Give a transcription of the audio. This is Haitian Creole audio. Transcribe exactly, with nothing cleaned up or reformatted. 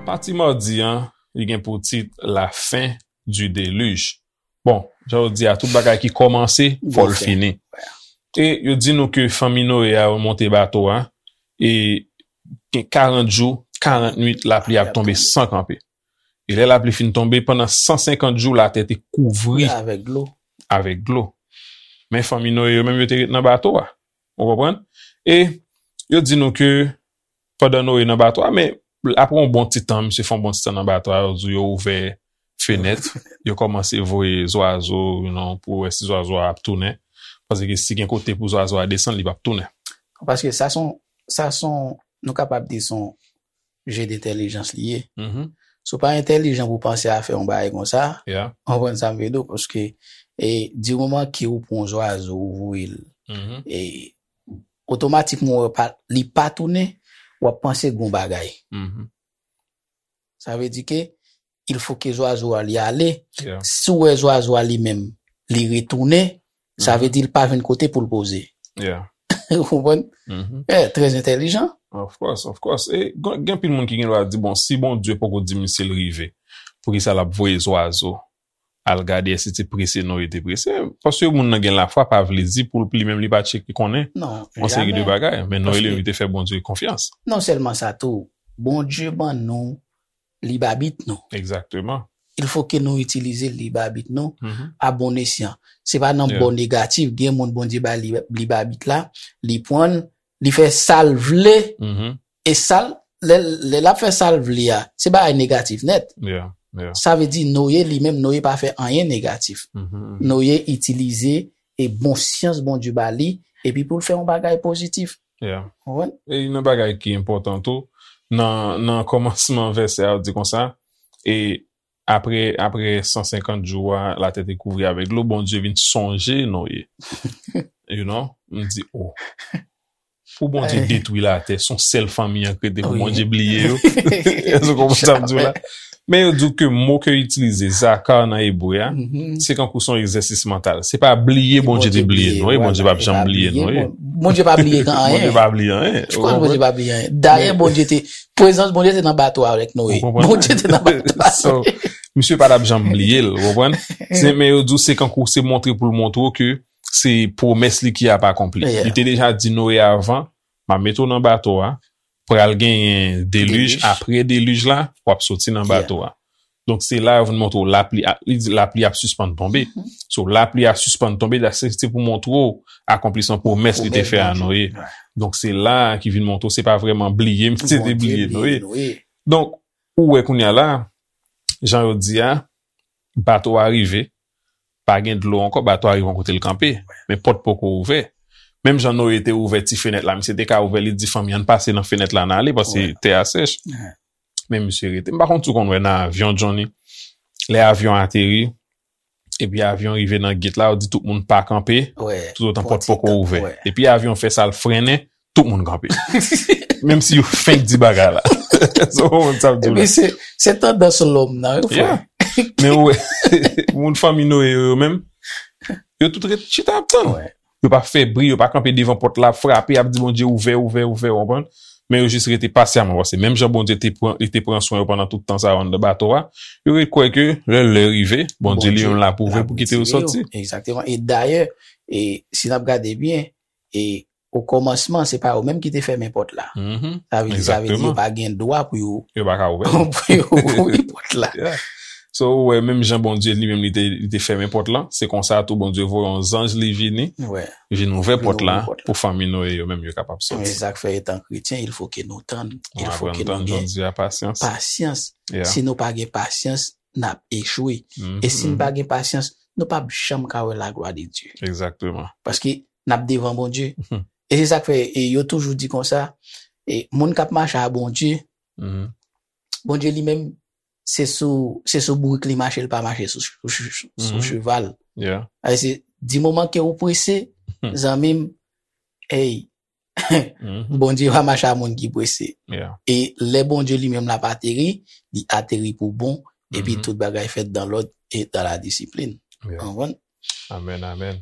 Pati madi an, li gen pou tit La fin du déluge. Bon, jan yo di a, tout bagay ki kòmanse, fò l fini. E yo di nou ke fanmi Noye a yo monte bato a, e gen karant jou, karant nwit, lapli ap tonbe san kanpe. E lè lapli fin tonbe, pandan san senkant jou, latè te kouvri avèk dlo. Avèk dlo. Men fanmi Noye yo menm, yo te ret nan bato a. Ou konprann? E yo di nou ke pandan Noye nan bato a, men apre yon bon ti tan, misye fè yon bon ti tan nan bato a, yo di yo ouvè fenèt, yo kòmanse voye zwazo, you know, pou wè si zwazo a ap tounen. Paske si gen kote pou zwazo a desann, li p ap tounen. Paske sa son, sa son, nou kapab di son je dentèlijans li ye. Si w pa entèlijan pou panse a fè yon bagay konsa, ou konprann sa m vle di w, paske e, di moman ke ou pran yon zwazo, ou voye l, e, otomatikman, ou wè pa, li pa tounen, w ap panse gon bagay. Sa vle di ke il faut que zwazo a li ale. Si w wè zwazo a li menm, li retounen, sa vle di l pa jwenn kote pou l poze. Ou konprann? Eh, trè entèlijan. Of course, of course. E gen, gen pil moun ki gen dwa di, bon, si Bondye poko di misye l rive, poukisa l ap voye zwazo al gade èske se prese Noye te prese? Paske moun nan gen lafwa pa vle di pou l, li menm li pa tcheke konnen yon seri de bagay. Men Noye li menm li te fè Bondye konfyans. Non sèlman sa tou, Bondye ban nou lib abit nou. Egzakteman. Il faut que nou itilize lib abit nou a bon esyan. Se pa nan bò negatif, gen moun Bondye bay lib, lib abit la, li pran l, li fè sa l vle, e sa l, lè, lè l ap fè sa l vle a, se bagay negatif nèt. Sa vle di Noye li menm, Noye pa fè anyen negatif. Noye itilize e bon syans Bondye ba li, epi pou l fè yon bagay pozitif. Ou konprann? E nan bagay ki enpòtan tou, nan, nan kòmansman vèsè a, di konsa, e apre, apre san senkant jou a, latè te kouvri avèk dlo, Bondye vin sonje Noye. You know? M di, oh. Pou Bondye detwi latè, se yon sèl fanmi an k rete pou Bondye bliye yo. Èske w konprann sa m di w la? Men yo di w ke mo ke yo itilize, zakar nan ebre a, se kankou se yon egzèsis mantal. Se pa bliye Bondye te bliye nou, e Bondye p ap janm bliye nou. Bondye pa bliye anyen. Bondye pa bliye anyen. Of course, Bondye pa bliye anyen. Dayè, Bondye te, prezans Bondye te nan bato a avèk Noye. Bondye te nan bato a. So, misye pa t ap janm bliye l, ou konprann? Se, men yo di w se kankou se montre pou l montre w ke se pwomès li ki ap akonpli. Li te deja di Noye avan, m ap mete w nan bato a, pral genyen delij, apre delij la, w ap soti nan bato a. Donk se la yo vin montre w lapli, a, li di lapli ap sispann tonbe. So lapli a sispann tonbe, la se, se pou montre w akonplisman pwomès li te fè a Noye. Donk se la ki vin montre w se pa vrèman bliye misye te bliye Noye. Donk ou wè kounye a la, jan yo di a, bato a rive, pa gen dlo ankò, bato a rive yon kote l kanpe. Men pòt poko ouvè. Menm jan Noye te ouvè ti fenèt la, misye te ka ouvè, li di fanmi an pase nan fenèt la n ale, paske tè a sèch. Men misye rete. M pa konn si w konn wè nan avyon, Johnny. Lè avyon ateri, epi avyon rive nan gate la, yo di tout moun pa kanpe, toutotan pòt poko ouvè. Epi avyon fè sa, l frennen, tout moun kanpe. Menm si yo fenk di bagay la. So, w konprann sa m di w la. Epi se, se tandans lòm nan, wi, frè. Men ou wè, moun fanmi Noye yo, yo menm, yo tout ret chita ap tann. Yo pa fè bri, yo pa kanpe devan pòt la, ap frape, ap di Bondye ouvè, ouvè, ouvè, w konprann? Men yo jis rete pasyaman, paske menm jan Bondye te pran, li te pran swen yo pandan tout tan sa yo anndan bato a, yo ret kwè ke lè lè rive, Bondye li menm l ap ouvè pou kite yo soti. Egzakteman. E dayè, e si n ap gade byen, e o kòmansman, se pa yo menm ki te fèmen pòt la. Sa vle di, sa vle di yo pa gen dwa pou yo, pou yo ouvri pòt la. So, ou wè, menm jan Bondye li menm li te, li te fèmen pòt la, se konsa tou Bondye voye yon zanj li vini, vin ouvè pòt la pou fanmi Noye yo menm yo kapab soti. Men sa k fè etan kretyen, il faut que nou tann, il faut que nou gen pasyans. Si nou pa gen pasyans, n ap echwe. E si n pa gen pasyans, nou p ap janm ka wè laglwa de Dye. Egzakteman. Paske n ap devan Bondye. E se sa k fè, e yo toujou di konsa, e moun k ap mache a Bondye, Bondye li menm, se sou, se sou bourik li mache, li pa mache sou, sou, sou, sou cheval. Alè se, di moman ke ou prese, zanmi m, ey, Bondye pa mache a moun ki prese. E lè Bondye li menm l ap ateri, li ateri pou bon, epi tout bagay fèt dan lòd e dan la disiplin. Ou konprann? Amèn, amèn.